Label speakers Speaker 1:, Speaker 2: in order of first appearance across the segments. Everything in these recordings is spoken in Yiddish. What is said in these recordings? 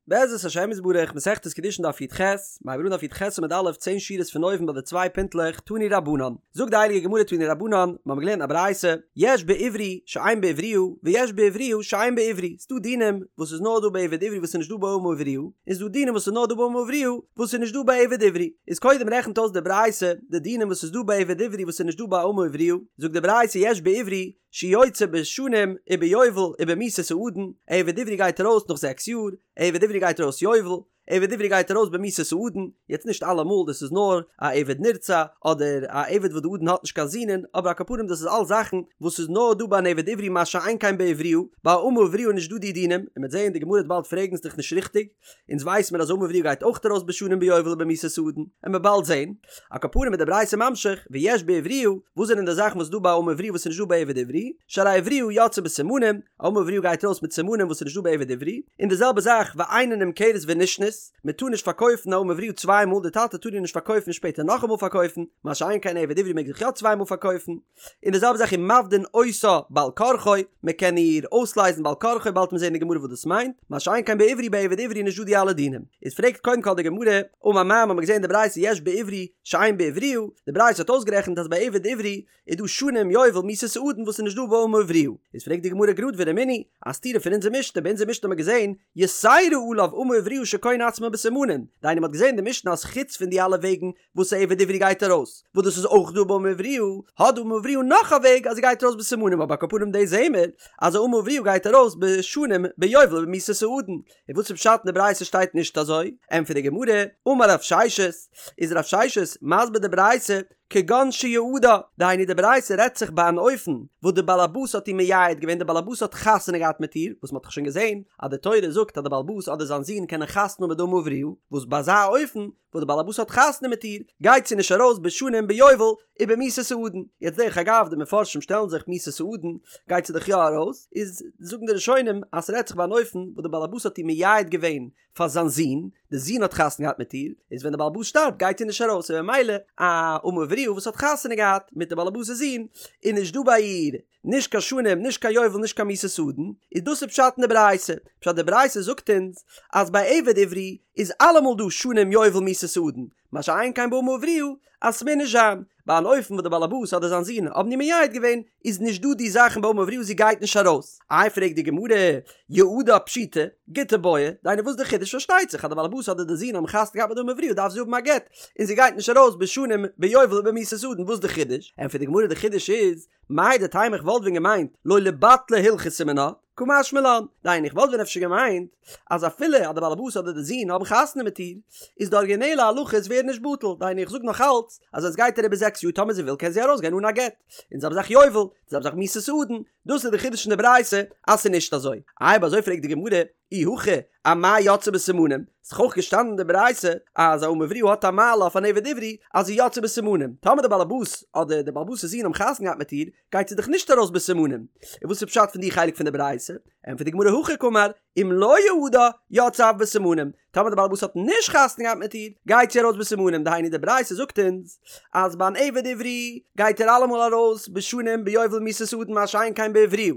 Speaker 1: בעזרת השם יתברך, מסכת קידושין דף י"ח, מ'הייבט אן דף י"ח עמוד א', צען שורות פון אויבן ביי די צוויי פינטלעך, תנו רבנן. זאגט די הייליגע גמרא תנו רבנן, מיר האבן געלערנט א ברייתא, יש בעברי שאין בעבריה, ויש בעבריה שאין בעברי, ס'דא דינים וואס איז נאר דא ביי עבד עברי וואס איז נישט דא ביי אמה עבריה, און ס'דא דינים וואס איז נאר דא ביי אמה עבריה וואס איז נישט דא ביי עבד עברי. איז קודם רעכנט אויס די ברייתא די דינים וואס איז דא ביי עבד עברי וואס איז נישט דא ביי אמה עבריה, זאגט די ברייתא יש בעברי שיוצא בשנים וביובל ובמיתת האדון, עבד עברי גייט ארויס נאך זעקס יאר, עבד עברי גייט ארויס יובל, עבד עברי גייט ארויס במיתת האדון, יעצט נישט אלעמאל דאס איז נאר א עבד נרצע, אדער א עבד וואס די אדון האט נישט קיין זינען, אבער על כל פנים דאס איז אלס זאכן וואס איז נאר דא ביי אן עבד עברי מה שאין כן בעבריה, ביי א אמה עבריה איז נישט דא די דינים, און מ'וועט זעהן די גמרא וועט באלד פרעגן ס'דאך נישט ריכטיג, אונז ווייס מיר אז אמה עבריה גייט אויך ארויס בשנים ביובל ובמיתת האדון, עמיר באלד זעהן. על כל פנים איז די ברייתא ממשיך, ויש בעבריה, וואס זענען די זאכן וואס איז דא ביי אמה עבריה וואס איז נישט דא ביי עבד עברי, שהרי עבריה יוצאה בסימנים, א אמה עבריה גייט ארויס מיט סימנים וואס איז נישט דא ביי עבד עברי, און די זעלבע זאך ואינה נמכרת ונשנית, מען טאר נישט פארקויפן א אמה עבריה צוויי מאל, די טאטע טאר איר נישט פארקויפן און שפעטער נאכאמאל פארקויפן, מה שאין כן עבד עברי מעג זיך יא צוויי מאל פארקויפן. און די זעלבע זאך ומפדין אותה בעל כרחו, מען קען איר אויסלייזן בעל כרחו, באלד וועט מען זען אין די גמרא וואס דאס מיינט, מה שאין כן בעברי ביי עבד עברי איז נישט דא די אלע דינים. איז פרעגט קודם כל די גמרא, אמר מר מ'האמיר געזען אין די ברייתא יש בעברי שאין בעבריה, די ברייתא האט אויסגערעכנט אז ביי עבד עברי איז דא שנים יובל מיתת האדון וואס איז נישט דא ביי אמה עבריה, איז פרעגט די גמרא גראד ורמינהי, א סתירה פון אונזער משנה, ביי אונזער משנה האט מען געזען יתירה עליו אמה עבריה שקונה עצמה בסימנים, דהיינו מ'האט געזען אין די משנה אז חוץ פון די אלע וועגן וואס א עבד עברי גייט ארויס, וואס דאס איז אויך דא ביי אמה עבריה, האט די אמה עבריה נאך א וועג אז זי גייט ארויס בסימנים אבער על כל פנים דאס זעהן מיר אז א אמה עבריה גייט ארויס בשנים ביובל ובמיתת האדון, און וואס איז פשט אין די ברייתא שטייט נישט אזוי? ענטפערט די גמרא, אמר רב ששת, איז רב ששת מסביר די ברייתא כגון שיעדה, דהיינו די ברייתא רעדט זיך ביי אן אופן וואס די בעל הבית האט איר מייעד געווען די בעל הבית האט חתונה געהאט מיט איר, וואס מען האט דאך שוין געזעהן אז די תורה זאגט אז די בעל הבית אדער זיין זון קענען חתונה האבן מיט די אמה עבריה, וואס ביי אזא אופן וואס די בעל הבית האט חתונה מיט איר, גייט זי נישט ארויס בשנים ביובל ובמיתת האדון. יעצט דרך אגב די מפרשים שטעלן זיך מיתת האדון גייט זי דאך יא ארויס, איז זאגן די ראשונים אז ס'רעדט זיך ביי אן אופן וואס די בעל הבית האט איר מייעד געווען פאר זיין זון, די זון האט חתונה געהאט מיט איר, איז ווען די בעל הבית שטארבט גייט זי נישט ארויס, און ממילא א אמה עבריה וואס האט חתונה געהאט מיט די בעל הבית'ס זון איז נישט דא ביי איר נישט קיין שנים, נישט קיין יובל, נישט קיין מיתת האדון, איז דאס איז פשט אין די ברייתא. פשט די ברייתא זאגט אונז אז ביי עבד עברי איז אלעמאל דא שנים יובל מיתת האדון, מה שאין כן באמה עבריה אז ס'מוז נישט זיין. ביי אן אופן וואס די בעל הבית אדער זיין זון האבן איר מייעד געווען איז נישט דא די זאכן ביי אמה עבריה זי גייט נישט ארויס. איי פרעגט די גמרא, יעדה פשיטא, גוטא בעיא, דהיינו וואס די חידוש פארשטייט זיך אז די בעל הבית אדער די זון האבן חתונה געהאט מיט די אמה עבריה דארף זי האבן א גט און זי גייט נישט ארויס בשנים ביובל ובמיתת האדון וואס די חידוש? ענטפערט די גמרא די חידוש איז מהו דתימא איך וואלט ווען געמיינט לא ליבטלה הלכתא מינה, קא משמע לן, דהיינו איך וואלט ווען אפשר געמיינט אז אפילו אז די בעל הבית אדער די זון האבן חתונה מיט איר, איז די ארגינעלע הלכות ווערן נישט בטל, דהיינו איך זאג נאך אלץ אז ווען עס גייט אריבער זעקס יאר טאמער זי וויל קען זי ארויסגיין אן א גט, און זעלבע זאך יובל, די זעלבע זאך מיתת האדון, דאס איז די חידוש אין די ברייתא אז ס'איז נישט אזוי. אויב אזוי פרעגט די גמרא, אי הכי אמאי יוצאה בסימנים, ס'איז דאך אויך געשטאנען אין די ברייתא אז א אמה עבריה האט א מעלה אויף אן עבד עברי אז זי יוצאה בסימנים, טאמער די בעלעבאס אדער די בעלעבאס'ס זון האבן חתונה געהאט מיט איר, גייט זי דאך נישט ארויס בסימנים. און וואס איז פשט פון די חלק פון די ברייתא? ענטפערט די גמרא הכי קאמר, אם לא יעדה, יוצאה אף בסימנים, טאמער די בעלעבאס האט נישט חתונה געהאט מיט איר, גייט זי ארויס בסימנים, דהיינו די ברייתא זאגט אונז אז ביי אן עבד עברי גייט ער אלעמאל ארויס בשנים ביובל מיתת האדון מה שאין כן בעבריה.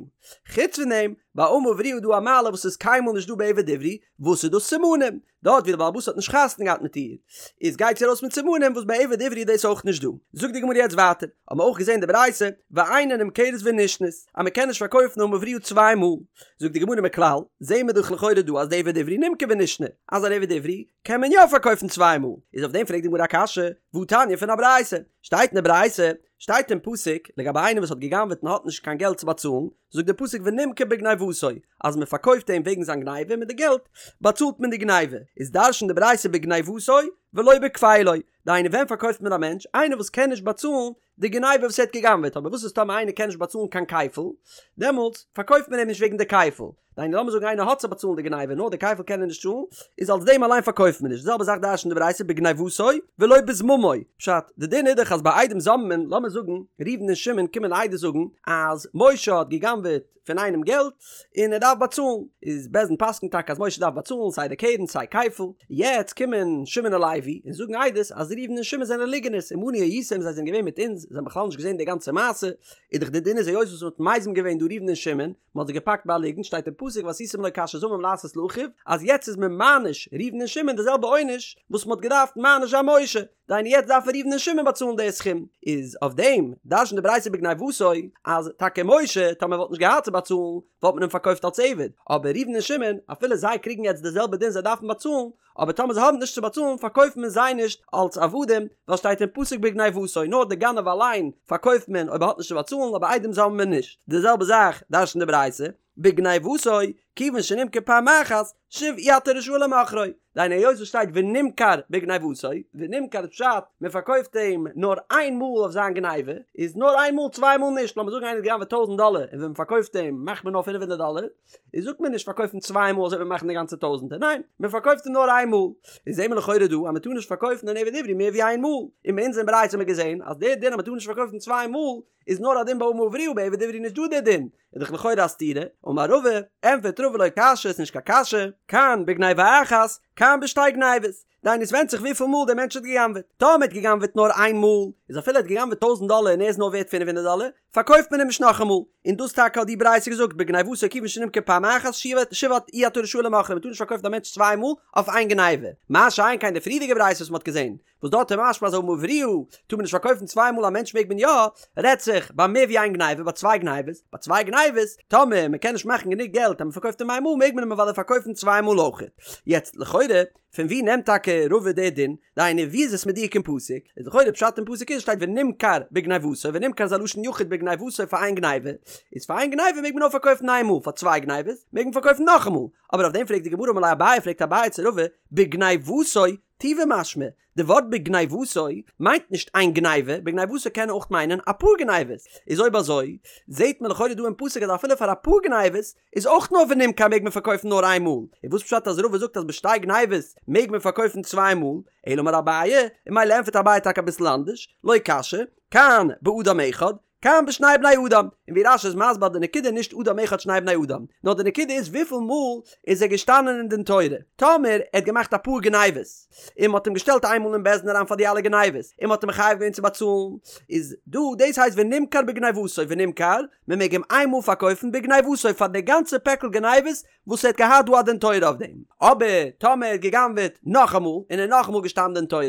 Speaker 1: חוץ פון דעם, ביי אמה עבריה איז דא א מעלה וואס איז קיינמאל נישט דא ביי עבד עברי, וואס איז דאס סימנים? דארט ווי די בעל הבית האט נישט חתונה געהאט מיט איר, איז גייט זי ארויס מיט סימנים וואס ביי עבד עברי איז דאס אויך נישט דא. זאגט די גמרא יעצט ווייטער, האבן מיר אויך געזען די ברייתא, ואינה נמכרת ונשנית, אז מען קען נישט פארקויפן אמה עבריה צוויי מאל. זאגט די גמרא מכלל, זעהן מיר דאך לכאורה דא אז דעבד עברי נמכר ונשנה, אז אן עבד עברי קען מען יא פארקויפן צוויי מאל, איז אויף דעם פרעגט די גמרא א קשיא, והתניא פון א ברייתא, שטייט אין די ברייתא, שטייט אין פסוק, לגבי איינער וואס האט גע'גנב'עט און האט נישט קיין געלט צו באצאלן, זאגט דער פסוק ונמכר בגניבתו, אז מען פארקויפט אים וועגן זיין גניבה, מיט די געלט באצאלט מען די גניבה, איז דרש'נט די ברייתא בגניבתו ולא בכפילו, דהיינו ווען פארקויפט מען א מענטש, איינער וואס קען נישט באצאלן די גניבה וואס ער האט גע'גנב'עט, אבער וואס איז טאמער איינער קען נישט באצאלן קיין כפל, דעמאלטס פארקויפט מען אים נישט וועגן די כפל, דהיינו לאמיר זאגן איינער האט צו באצאלן די גניבה נאר די כפל קען ער נישט צאלן, איז אלס דעם אליין פארקויפט מען נישט, די זעלבע זאך דרש'נט די ברייתא בגניבתו ולא בזממו, פשט, די דין איז דאך אז ביי עדים זוממין, לאמיר זאגן ראובן און שמעון קומען עדות זאגן אז משה האט גע'גנב'עט פון איינעם געלט און ער דארף באצאלן, איז בית דין פסק'נט טאקע אז משה דארף באצאלן סיי די קרן סיי כפל, יעצט קומען שמעון און לוי און זאגן עדות אז ראובן און שמעון זענען ליגענערס, עמנו הייתם זיי זענען געווען מיט אונז, זיי האבן בכלל נישט געזען די גאנצע מעשה, איז דאך די דין איז היות וואס מ'האט מזים געווען דא ראובן און שמעון, מ'האט זיי געפאקט ביי א ליגנט, שטייט אין פסוק ועשיתם לו כאשר זמם לעשות לאחיו, אז יעצט איז מען מעניש ראובן און שמעון די זעלבע עונש וואס מ'האט געדארפט מעניש זיין משה, דהיינו יעצט דארפן ראובן און שמעון באצאלן די סכום, איז אויף דעם דרש'נט די ברייתא בגניבתו אז טאקע משה טאמער וואלט נישט געהאט צו באצאלן וואלט מען אים פארקויפט אלס עבד, אבער ראובן און שמעון אפילו זיי קריגן יעצט די זעלבע דין זיי דארפן באצאלן, אבער טאמער זיי האבן נישט צו באצאלן פארקויפט מען זיי נישט אלס עבדים, ווייל שטייט אין פסוק בגניבתו נאר די גנב אליין פארקויפט מען אויב ער האט נישט צו באצאלן אבער עדים זאמלט מען נישט, די זעלבע זאך דרש'נט די ברייתא בגניבתו כיוון שנמכר פעם אחת שוב אי אתה רשאי למוכרו, דהיינו היות עס שטייט ונמכר בגניבתו, ונמכר איז פשט מען פארקויפט אים נאר איין מאל אויף זיין גניבה, איז נאר איין מאל צוויי מאל נישט, לאמיר זאגן איינער האט געגנבעט טויזנט דאלער און ווען מען פארקויפט אים מאכט מען נאר פינף הונדערט דאלער, איז זאגט מען נישט פארקויפן צוויי מאל אזוי וועט מען מאכן די גאנצע טויזענטער, ניין, מען פארקויפט אים נאר איין מאל. איז זעהן מיר לכאורה דא אז מען טאר נישט פארקויפן אן עבד עברי מער ווי איין מאל, און ביי אונז אין ברייתא האט מען געזעהן אז דער דין אז מען טאר נישט פארקויפן צוויי מאל איז נאר א דין ביי אמה עבריה ביי עבד עברי נישט דא דער דין, איז דאך לכאורה א סתירה, אמר רבא, ענטפערט רבא לא קשיא איז נישט קיין קשיא, כאן בגניבה אחת, כאן בשתי גניבות. דהיינו עס ווענדט זיך וויפיל מאל דער מענטש האט גע'גנב'עט. טאמער ער האט גע'גנב'עט נאר איין מאל, איז אפילו ער האט גע'גנב'עט טויזנט דאלער און ער איז נאר ווערט פינף הונדערט דאלער, פארקויפט מען אים נישט נאכאמאל. און דאס טאקע האט די ברייתא געזאגט בגניבתו כיוון שנמכר פעם אחת שוב אי אתה רשאי למוכרו מען טאר נישט פארקויפן א מענטש צוויי מאל אויף איין גניבה. מה שאין כן די פריערדיגע ברייתא וואס מען האט געזען, וואס דארט איז משמע אז אמה עבריה טאר מען נישט פארקויפן צוויי מאל א מענטש מעג מען יא, רעדט זיך ביי מער ווי איין גניבה ביי צוויי גניבות, ביי צוויי גניבות טאמער מען קען נישט מאכן גענוג געלט אז מען פארקויפט אים איין מאל מעג מען אים אוודאי פארקויפן צוויי מאל אויכעט. יעצט לכאורה פון ווי נעמט טאקע רבא די דין? דהיינו ווי איז עס מדויק אין פסוק? איז לכאורה פשט אין פסוק איז שטייט ונמכר בגניבתו ונמכר איז א לשון יחיד בגניבתו פאר איין גניבה, איז פאר איין גניבה מעג מען נאר פארקויפן איין מאל פאר צוויי גניבות מעג מען פארקויפן נאכאמאל, אבער אויף דעם פרעגט די גמרא אמר ליה אביי פרעגט אביי צו רבא בגניבתו טובא משמע, די ווארט בגניבתו מיינט נישט איין גניבה, בגניבתו קען אויך מיינען אפאר גניבות, איז אויב אזוי זעהט מען לכאורה דא אין פסוק אז אפילו פאר אפאר גניבות איז אויך נאר ונמכר מעג מען פארקויפן נאר איין מאל, און וואס פשט אז רבא זאגט אז בשתי גניבות מעג מען פארקויפן צוויי מאל, אלא אמר אביי, און ממילא ענטפערט אביי טאקע אביסל אנדערש, לא קשיא, כאן באדם אחד, כאן בשני בני אדם, און ווי רש"י איז מסביר די נקודה נישט אדם אחד שני בני אדם, נאר די נקודה איז וויפיל מאל איז ער געשטאנען אין דין תורה, טאמער ער האט געמאכט אפאר גניבות, און מ'האט אים געשטעלט איינמאל אין בית דין אריין פאר די אלע גניבות, און מ'האט אים מחייב געווען צו באצאלן, איז דא דאס הייסט ונמכר בגניבתו ונמכר, מ'מעג אים איינמאל פארקויפן בגניבתו פאר די גאנצע פעקל גניבות וואס ער האט געהאט דא א דין תורה אויף דעם, אבער טאמער ער האט גע'גנב'עט נאכאמאל און ער איז נאכאמאל געשטאנען דין תורה,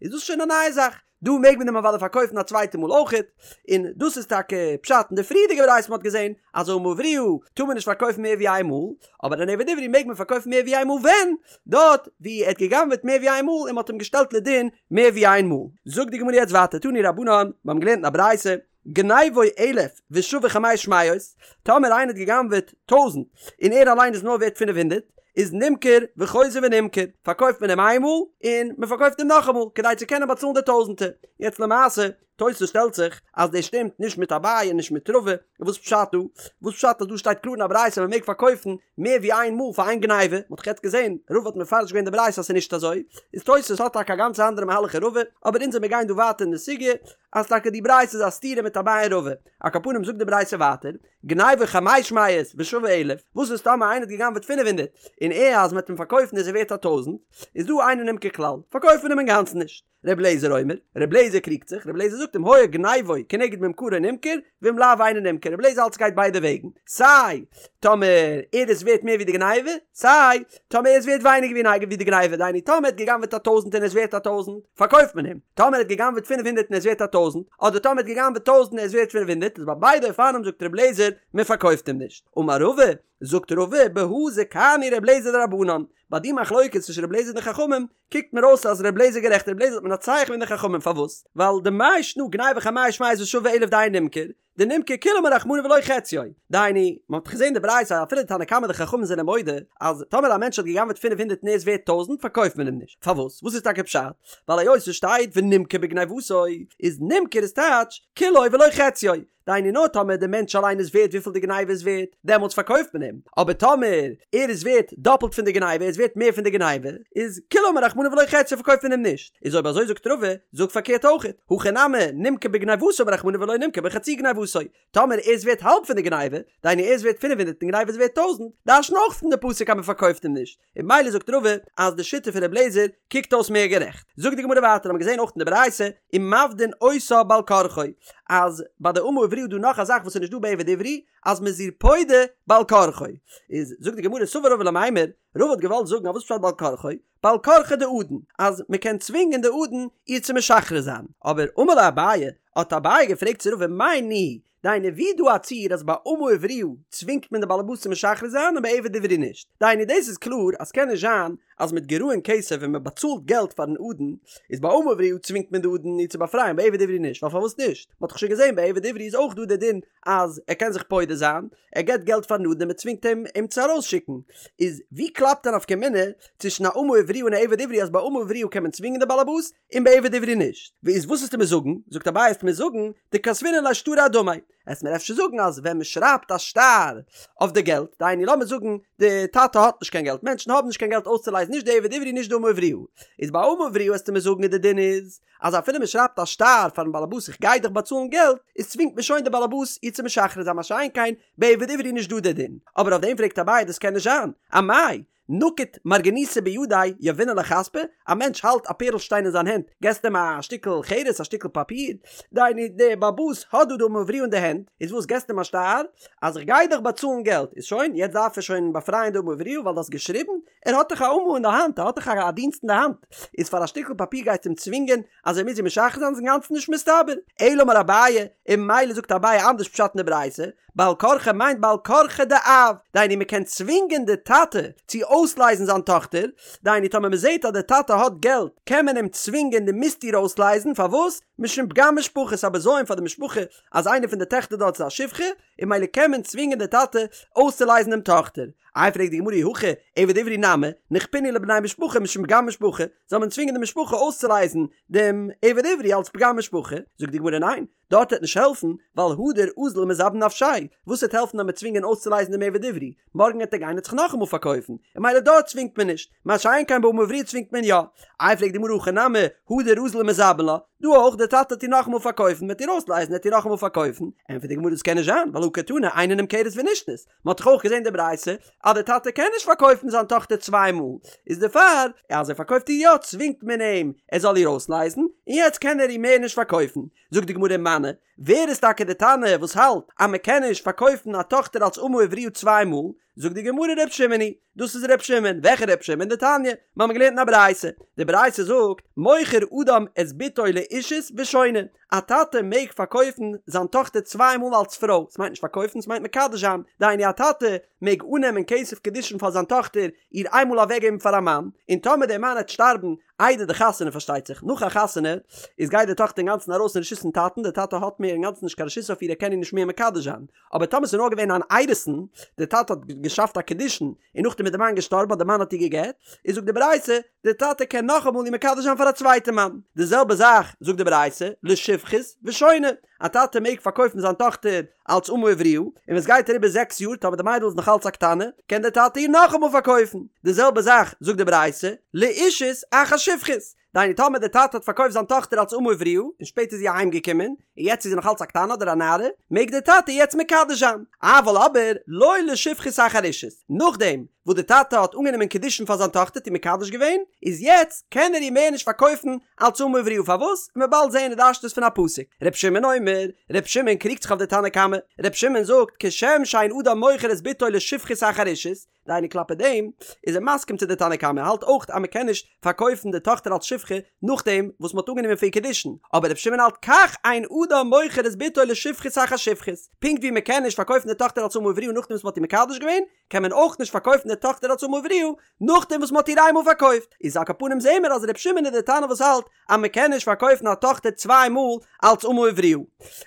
Speaker 1: איז דאס שוין א נייע זאך, דא מעג מען אים אוודאי פארקויפן א צווייטע מאל אויכעט, און דאס איז טאקע פשט אין די פריערדיגע ברייתא מ'האט געזען אז אמה עבריה טאר מען נישט פארקויפן מער ווי איין מאל, אבער אן עבד עברי מעג מען פארקויפן מער ווי איין מאל ווען? דארט ווי ער האט גע'גנב'עט מער ווי איין מאל און מ'האט אים געשטעלט לדין מער ווי איין מאל. זאגט די גמרא יעצט ווייטער תנו רבנן, מיר האבן געלערנט אין א ברייתא, גניבו אלף ושווה חמש מאות, טאמער איינער האט גע'גנב'עט טויזנט און ער אליין איז נאר ווערט פינף הונדערט, איז נמכר וחוזר ונמכר, פארקויפט מען אים איינמאל און מען פארקויפט אים נאכאמאל כדי צו קענען באצאלן די טויזנטער. יעצט למעשה, תוס' שטעלט זיך אז דאס שטימט נישט מיט אביי און נישט מיט רבא, וואס פשט דא? וואס פשט אז דא שטייט קלאר אין א ברייתא מען מעג פארקויפן מער ווי איין מאל פאר איין גניבה? מען האט דאך יעצט געזען, רבא האט מפרש געווען די ברייתא אז ס'איז נישט אזוי, איז תוס' האט טאקע א גאנץ אנדערע מהלך אין רבא, אבער אונז וועמיר גיין דא ווייטער אין די סוגיא, אז טאקע די ברייתא איז א סתירה מיט אביי און רבא. על כל פנים זאגט די ברייתא ווייטער, גניבו חמש מאות ושווה אלף, וואס איז טאמער איינער האט גע'גנב'עט פינף הונדערט, און ער אז מ'וועט אים פארקויפן איז ער ווערט א טויזנט, איז דא אינו נמכר כלל, פארקויפט מען אים אינגאנצן נישט. ר' אליעזר אומר, ר' אליעזר קריגט זיך, ר' אליעזר זאגט אם היה גניבו כנגד ממכרו נמכר, ואם לאו אינו נמכר, ר' אליעזר האלט ס'גייט ביידע וועגן, סיי טאמער ער איז ווערט מער ווי די גניבה, סיי טאמער ער איז ווערט ווייניגער ווי די גניבה, דהיינו טאמער ער האט גע'גנב'עט א טויזנט און ער איז ווערט א טויזנט, פארקויפט מען אים, טאמער ער האט גע'גנב'עט פינף הונדערט און ער איז ווערט א טויזנט, אדער טאמער ער האט גע'גנב'עט טויזנט און ער איז ווערט פינף הונדערט, איז ביי ביידע אופנים זאגט ר' אליעזר, מען פארקויפט אים נישט. אמר רבא, זאגט רבא, בהא זכאנו ר' אליעזר לרבנן, ביי די מחלוקת צווישן ר' אליעזר און די חכמים, קוקט מיר אויס אז ר' אליעזר איז גערעכט, ר' אליעזר האט מנצח געווען די חכמים, פארוואס? ווייל דמאי שנא גניבו חמש מאות ושווה אלף דאינו נמכר, דנמכר כולו אמר רחמנא ולא חציו, דהיינו, מען האט דאך געזען די ברייתא אז אפילו די תנא קמא די חכמים זענען מודה אז טאמער א מענטש האט גע'גנב'עט פינף הונדערט און ער איז ווערט טויזנט פארקויפט מען אים נישט, פארוואס? וואס איז טאקע פשט? ווייל היות עס שטייט ונמכר בגניבתו איז נמכר איז טייטש כולו ולא חציו, דהיינו נאר טאמער די מענטש אליין איז ווערט וויפיל די גניבה איז ווערט, דעמאלטס פארקויפט מען אים, אבער טאמער ער איז ווערט דאפלט פון די גניבה, ער איז ווערט מער פון די גניבה, איז כולו אמר רחמנא ולא חציו פארקויפט מען אים נישט. איז אויב אזוי זאגט רבא, זאג פארקערט אויכעט, הכא נמי, נמכר בגניבתו אמר רחמנא ולא נמכר בחצי גניבתו. גניבתו, טאמער ער איז ווערט האלב פון די גניבה, דהיינו ער איז ווערט פינף הונדרעט און גניבה איז ווערט טויזנט, דרש'ן אויך פון די פסוק אז מען פארקויפט אים נישט, און ממילא זאגט רבא אז די שיטה פון ר' לעזער קוקט אויס מער גערעכט. זאגט די גמרא ווייטער האבן מיר געזען אויך אין די ברייתא ומפדין אותה בעל כרחו אז ביי די אמה עבריה איז דא נאך א זאך וואס איז נישט דא ביי עבד עברי אז מ'איז איר פודה בעל כרחו. איז זאגט די גמרא סבר רבא למימר, רבא האט געוואלט זאגן אז וואס פשט בעל כרחו? בעל כרחיה דאדון, אז מ'קען צווינגען די אדון איר צו משחרר זיין. אבער אמר ליה אביי, האט אביי געפרעגט צו רבא מאי ניהו, דהיינו ווי איז דא א ציור אז ביי אמה עבריה צווינגט מען די באלעבאס צו משחרר זיין און ביי עבד עברי נישט? דהיינו דאס איז קלאר אז ס'קען נישט זיין אז מיט גרעון כסף ווען מען באצאלט געלט פארן אדון איז ביי אמה עבריה צווינגט מען די אדון איר צו באפרייען ביי עבד עברי נישט ווייל פארוואס נישט? מען האט דאך שוין געזען ביי עבד עברי איז אויך דא די דין אז ער קען זיך פודה זיין ער געבט געלט פארן אדון און מען צווינגט אים אים צו ארויסשיקן איז ווי קלאפט א נפקא מינה צווישן א אמה עבריה און א עבד עברי אז ביי אמה עבריה קען מען צווינגען די באלעבאס און ביי עבד עברי נישט. איז וואס וועסטו מיר זאגן? זאגט אביי וועסט מיר זאגן דכתבינן ליה שטרא אדמיה. וועסט מיר אפשר זאגן אז ווען מען שרייבט א שטר אויף די געלט, דהיינו לאמיר זאגן די טאטע האט נישט קיין געלט, מענטשן האבן נישט קיין געלט אויסצולייזן נישט די עבד עברי נישט די אמה עבריה, איז ביי אמה עבריה וועסטו מיר זאגן אז די דין איז אז אפילו מען שרייבט א שטר פארן באלעבאס איך גיי דיך באצאלן געלט, איז צווינגט מען שוין די באלעבאס איר צו משחרר זיין מה שאין כן ביי עבד עברי נישט דא די דין. אבער אויף דעם פרעגט אביי דאס קען נישט זיין, אמאי נקיט מרגניתא בידיה יהבינן ליה חספא, א מענטש האלט א פערל שטיין אין זיין הענט, געסט אים א שטיקל חרס, א שטיקל פאפיר, דהיינו דער באלעבאס האט דא די אמה עבריה אין די הענט, איז וואס געסט אים א שטר אז איך גיי דיך באצאלן געלט, איז שוין, יעצט דארף ער שוין באפרייען די אמה עבריה ווייל דו האסט געשריבן, ער האט דאך א אמה אין די האנט, ער האט דאך א דינסט אין די האנט, איז פאר א שטיקל פאפיר גייסטו אים צווינגען אז ער מוז איר משחרר זיין איז אינגאנצן נישט מסתבר. אלא אמר אביי, און ממילא זאגט אביי אנדערש פשט אין די ברייתא, בעל כרחו מיינט בעל כרחיה דאב, דהיינו מען קען צווינגען די טאטע צו אויסלייזן זיין טאכטער, דהיינו טאמער מען זעט אז די טאטע האט געלט קען מען אים צווינגען דו מוזט איר אויסלייזן, פארוואס? משום פגם משפחה, ס'איז א בזיון פאר די משפחה אז איינע פון די טעכטער דארט איז א שפחה, און ממילא קען מען צווינגען די טאטע אויסצולייזן דעם טאכטער. איי פרעגט די גמרא אי הכי עבד עברי נמי, נכפינהו לבני משפחה משום פגם משפחה, זאל מען צווינגען די משפחה אויסצולייזן דעם עבד עברי אלס פגם משפחה? זאגט די גמרא ניין, דארט וועט נישט העלפן, ווייל הדר אזיל ומזבין נפשיה, וואס וועט העלפן אז מ'וועט צווינגען אויסצולייזן דעם עבד עברי, מארגן וועט ער גיין און זיך נאכאמאל פארקויפן, און ממילא דארט צווינגט מען נישט, מה שאין כן באמה עבריה צווינגט מען יא. איי פרעגט די גמרא הכא נמי, הדר אזיל ומזבין לה, דא אויך, דער טאטע וועט איר נאכאמאל פארקויפן, מ'וועט איר אויסלייזן וועט איר נאכאמאל פארקויפן, ענטפערט די גמרא דאס קען נישט זיין, ווייל הא קתני אינה נמכרת ונשנית, מען האט דאך אויך געזען די ברייתא אז דער טאטע קען נישט פארקויפן זיין טאכטער צוויי מאל, איז דערפאר אז ער פארקויפט איר יא צווינגט מען אים ער זאל איר אויסלייזן, און יעצט קען ער איר מער נישט פארקויפן. זאגט די גמרא ומני, ווער איז טאקע די תנא וואס האלט אז מען קען נישט פארקויפן א טאכטער אלס אמה עבריה צוויי מאל? זאגט די גמרא ר' שמעון היא, דאס איז ר' שמעון, וועלכע ר' שמעון? דתניא, מיר האבן געלערנט אין א ברייתא, די ברייתא זאגט, מוכר אדם את בתו לאישות ושונה, א טאטע מעג פארקויפן זיין טאכטער צוויי מאל אלס פרוי, ס'מיינט נישט פארקויפן, ס'מיינט מקדש זיין, דהיינו א טאטע מעג אננעמען כסף קידושין פאר זיין טאכטער, איר איינמאל אוועקגעבן פאר א מאן, און טאמער דער מאן העט שטארבן איידער די חתונה פארשטייט זיך, נאך א חתונה איז גייט די טאכטער אינגאנצן ארויס פון רשות פון טאטן, דער טאטע האט מער אינגאנצן נישט קיין רשות אויף איר ער קען איר נישט מער מקדש זיין, אבער טאמער ס'איז נאר געווען אן אירוסין, דער טאטע האט געשאפט א קידושין און נאכדעם איז די מאן געשטארבן אדער די מאן האט איר גע'גט, איז זאגט די ברייתא, די טאטע קען נאכאמאל איר מקדש זיין פאר א צווייטע מאן. די זעלבע זאך זאגט די ברייתא, לשפחות ושונה, א טאטע מעג פארקויפן זיין טאכטער אלץ אמה עבריה, און ווען עס גייט אריבער זעקס יאר טאמער די מיידל איז נאך אלץ א קטנה, קען דער טאטע איר נאכאמאל פארקויפן. די זעלבע זאך זאגט די ברייתא, לאישות אחר שפחות, דהיינו טאמער דער טאטע האט פארקויפט זיין טאכטער אלס אמה עבריה און שפעטער איז זי אהיים געקומען און יעצט איז זי נאך אלץ א קטנה אדער א נערה, מעג דער טאטע יעצט מקדש זיין. אבל אבער לא לשפחות אחר אישות, נאכדעם וואס דער טאטע האט אנגענומען קידושין פאר זיין טאכטער האט איר מקדש געווען, איז יעצט קען ער איר מער נישט פארקויפן אלס אמה עבריה פארוואס? וועט מען באלד זעהן ער דרש'נט עס פון א פסוק. ר' שמעון אומר, ר' שמעון קריגט זיך אויף די תנא קמא, ר' שמעון זאגט כשם שאין אדם מוכר את בתו לשפחות אחר אישות, דהיינו כלפי דעם איז ער מסכים צו די תנא קמא, ער האלט אויך אז מען קען נישט פארקויפן די טאכטער אלס שפחה נאכדעם וואס מען האט אנגענומען פאר איר קידושין, אבער רבי שמעון האלט כך אין אדם מוכר את בתו לשפחות אחר שפחות, פונקט ווי מען קען נישט פארקויפן די טאכטער אלס אמה עבריה נאכדעם וואס מען האט איר מקדש געווען, קען מען אויך נישט פארקויפן די טאכטער אלס אמה עבריה נאכדעם וואס מען האט איר איינמאל פארקויפט, איז על כל פנים זעהן מיר אז רבי שמעון איז די תנא וואס האלט אז מען קען נישט פארקויפן א טאכטער צוויי מאל אלץ אמה עבריה.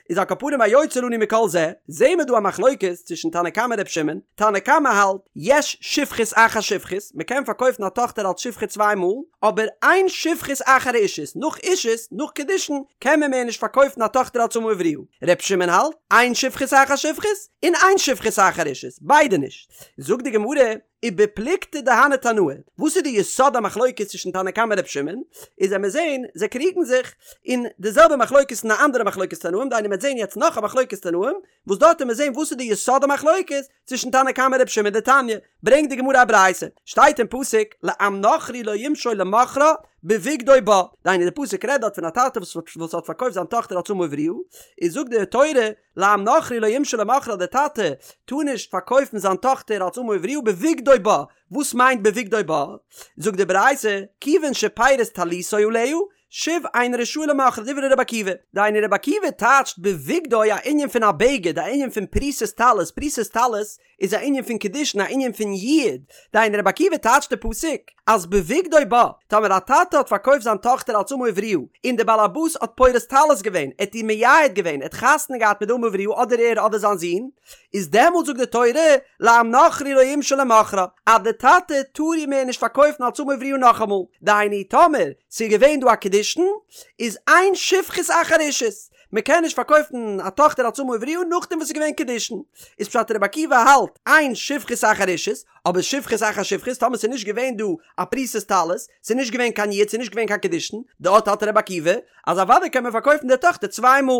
Speaker 1: איז על כל פנים היוצא לנו מכל זה, זעהן מיר דא א מחלוקת צווישן תנא קמא און ר' שמעון, תנא קמא האלט, יש שפחות אחר שפחות, מען קען פארקויפן א טאכטער אלץ שפחה צוויי מאל, אבער אין שפחות אחר אישות, נאך אישות, נאך קידושין, קען מען מער נישט פארקויפן א טאכטער אלץ אמה עבריה. ר' שמעון האלט, אין שפחות אחר שפחות, און אין שפחות אחר אישות, ביידע נישט. זאגט די גמרא. ובפלוגתא דהני תנאי, וואס איז די יסוד המחלוקת צווישן תנא קמא און ר' שמעון, איז וועמיר זעהן, זיי קריגן זיך אין די זעלבע מחלוקת אין א אנדערע מחלוקת תנאים, דהיינו מ'וועט זעהן יעצט נאך א מחלוקת תנאים, וואס דארט וועמיר זעהן וואס איז די יסוד המחלוקת צווישן תנא קמא און ר' שמעון דתניא, ברענגט די גמרא א ברייתא, שטייט אין פסוק לעם נכרי לא ימשול למכרה בבגדו בה, דהיינו די פסוק רעדט דארט פון א טאטע וואס האט פארקויפט זיין טאכטער אלס אמה עבריה, איז זאגט די תורה לעם נכרי לא ימשול למכרה די טאטע טאר נישט פארקויפן זיין טאכטער אלס אמה עבריה בבגדו בה, וואס מיינט בבגדו בה? זאגט די ברייתא, כיוון שפרס טליתו עליה, שוב אינו רשאי למוכרה דברי רבי עקיבא, דהיינו רבי עקיבא טייטשט בבגדו א ענין פון א בגד, א ענין פון פריסת טלית, פריסת טלית איז א ענין פון קידושין א ענין פון יעוד, דהיינו רבי עקיבא טייטשט די פסוק אז בבגדו בה, טאמער א טאטע האט פארקויפט זיין טאכטער אלס אמה עבריה, און דער בעל הבית האט פורס טלית געווען, ער האט איר מייעד געווען, ער האט חתונה געהאט מיט די אמה עבריה אדער ער אדער זיין זון, איז דעמאלט זאגט די תורה, לעם נכרי לא ימשול למכרה, אז די טאטע טאר איר מער נישט פארקויפן אלס אמה עבריה נאכאמאל, דהיינו טאמער ס'איז געווען דא א קידושין, איז אין שפחות אחר אישות, מ'קען נישט פארקויפן א טאכטער אלס אמה עבריה נאכדעם וואס ס'איז געווען קידושין, איז פשט רבי עקיבא האלט אין שפחות אחר אישות, אבער שפחות אחר שפחות טאמער ס'איז נישט געווען דא א פריסת טלית, ס'איז נישט געווען קיין יעוד ס'איז נישט געווען קיין קידושין, דארט האלט רבי עקיבא אז אוודאי קען מען פארקויפן די טאכטער צוויי מאל.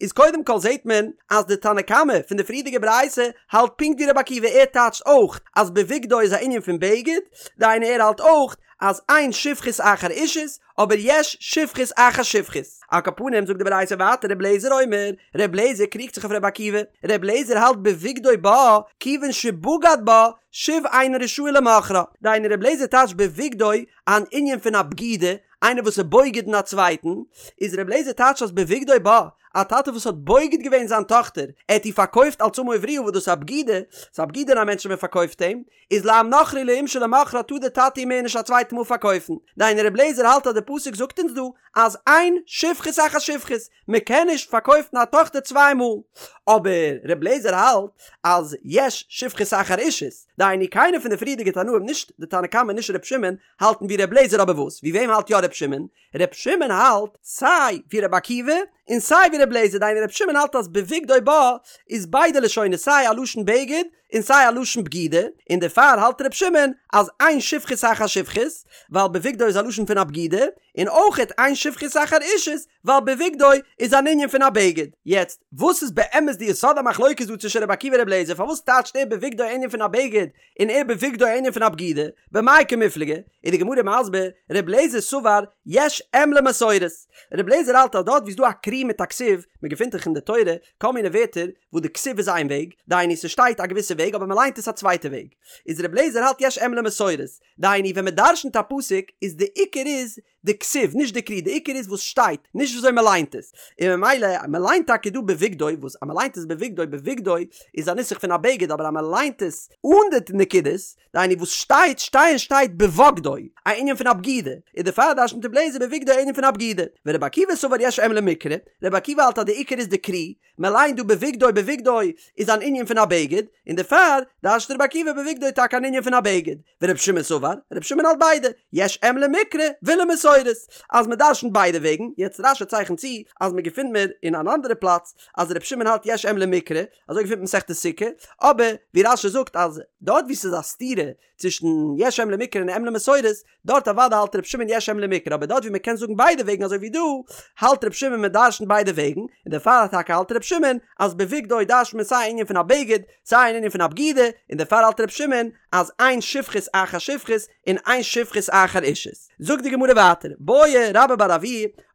Speaker 1: איז קודם כל זעהט מען אז די תנא קמא פון די פריערדיגע ברייתא האלט פונקט ווי רבי עקיבא ער טייטשט אויך אז בבגדו איז א ענין פון בגד, דהיינו ער האלט אויך אז אין שפחות אחר אישות אבער יש שפחות אחר שפחות. על כל פנים זאגט די ברייתא ווייטער ר' לעזער אומר, ר' לעזער קריגט זיך אויף ר' עקיבא, ר' לעזער האלט בבגדו בה כיוון שבגד בה שוב אינו רשאי למוכרה, דהיינו ר' לעזער טייטשט בבגדו אן ענין פון א בגידה, איינער וואס איז בוגד אין א צווייטן, איז ר' לעזער טייטשט אז בבגדו בה, א טאטע וואס האט בוגד געווען זיין טאכטער, ער האט איר פארקויפט אלס אמה עבריה וואס דאס איז א בגידה, ס'איז א בגידה אין א מענטש ווען מען פארקויפט אים, איז לעם נכרי לא ימשול למוכרה טאר דער טאטע איר מער נישט א צווייטע מאל פארקויפן. דהיינו ר' לעזער האלט אז די פסוק זאגט אונז דא אז אין שפחות אחר שפחות, מען קען נישט פארקויפן א טאכטער צוויי מאל. אבער ר' לעזער האלט אז יש שפחות אחר אישות, דהיינו קיינער פון די פריערדיגע תנאים נישט די תנא קמא נישט ר' שמעון האלטן ווי ר' לעזער אבער וואס ווי וועם האלט יא ר' שמעון? ר' שמעון האלט סיי ווי ר' עקיבא און סיי ווי ר' לעזער דהיינו ר' שמעון האלט אז בבגדו בה איז ביידע לשונות סיי א לשון בגד און סיי א לשון בגידה און דערפאר האלט ר' שמעון אז אין שפחות אחר שפחות ווייל בבגדו איז א לשון פון א בגידה און אויכעט אין שפחות אחר אישות ווייל בבגדו איז אן ענין פון א בגד. יעצט, וואס איז באמת די יסוד המחלוקת דא צווישן רבי עקיבא און רבי אליעזר? פארוואס טייטשט ער בבגדו א ענין פון א בגד, און ער בבגדו א ענין פון א בגידה? במאי קמיפלגי? איז די גמרא מסביר, רבי אליעזר סבר יש אם למסורת. רבי אליעזר האלט אז דארט ווי ס'איז דא א קרי מיט א כתיב, מ'געפינט דאך אין די תורה כל מיני ווערטער וואס די כתיב איז איין וועג, דהיינו ס'שטייט א געוויסע וועג אבער מ'ליינט עס א צווייטע וועג. איז רבי אליעזר האלט יש אם למסורת. דהיינו ווען מ'דרשנ'ט א פסוק איז די עיקר איז די כתיב, נישט די קרי, די עיקר איז וואס שטייט, נישט וויאזוי מען ליינט עס. און ממילא, מען ליינט טאקע דא בבגדו, וואס אז מען ליינט עס בבגדו, בבגדו איז א נוסח פון א בגד, אבער אז מען ליינט עס אן די נקודות, דהיינו וואס שטייט, שטייען שטייט בבגדו, א ענין פון א בגידה, און דערפאר דרש'נט רבי אליעזר בבגדו א ענין פון א בגידה. ורבי עקיבא סבר יש אם למקרא, רבי עקיבא האלט אז די עיקר איז די קרי, מען ליינט דא בבגדו בבגדו איז אן ענין פון א בגד, און דערפאר דרש'נט רבי עקיבא בבגדו טאקע אן ענין פון א בגד, ורבי שמעון סבר, רבי שמעון האלט ביידע, יש אם למקרא ולמסורת, אז מען דרש'נט ביידע וועגן, יעצט רש"י צייכנט צו אז מען געפינט מיר אין אן אנדערע פלאץ אז רבי שמעון האלט יש אם למקרא, אזוי געפינט מען מסכת סוכה, אבער ווי רש"י זאגט אז דארט ווי ס'איז א סתירה צווישן יש אם למקרא און אם למסורת, דארט אוודאי האלט ר' שמעון יש אם למקרא אבער דארט ווי מען קען זאגן ביידע וועגן אזוי ווי דא, האלט ר' שמעון מען דרשנ'ט ביידע וועגן, און דערפאר טאקע האלט ר' שמעון אז בבגדו דרש'נט מען סיי א ענין פון א בגד, סיי אן ענין פון א בגידה, און דערפאר האלט ר' שמעון אז אין שפחות אחר שפחות און אין שפחות אחר אישות. זאגט די גמרא ווייטער, בעי רבה בר אבוה,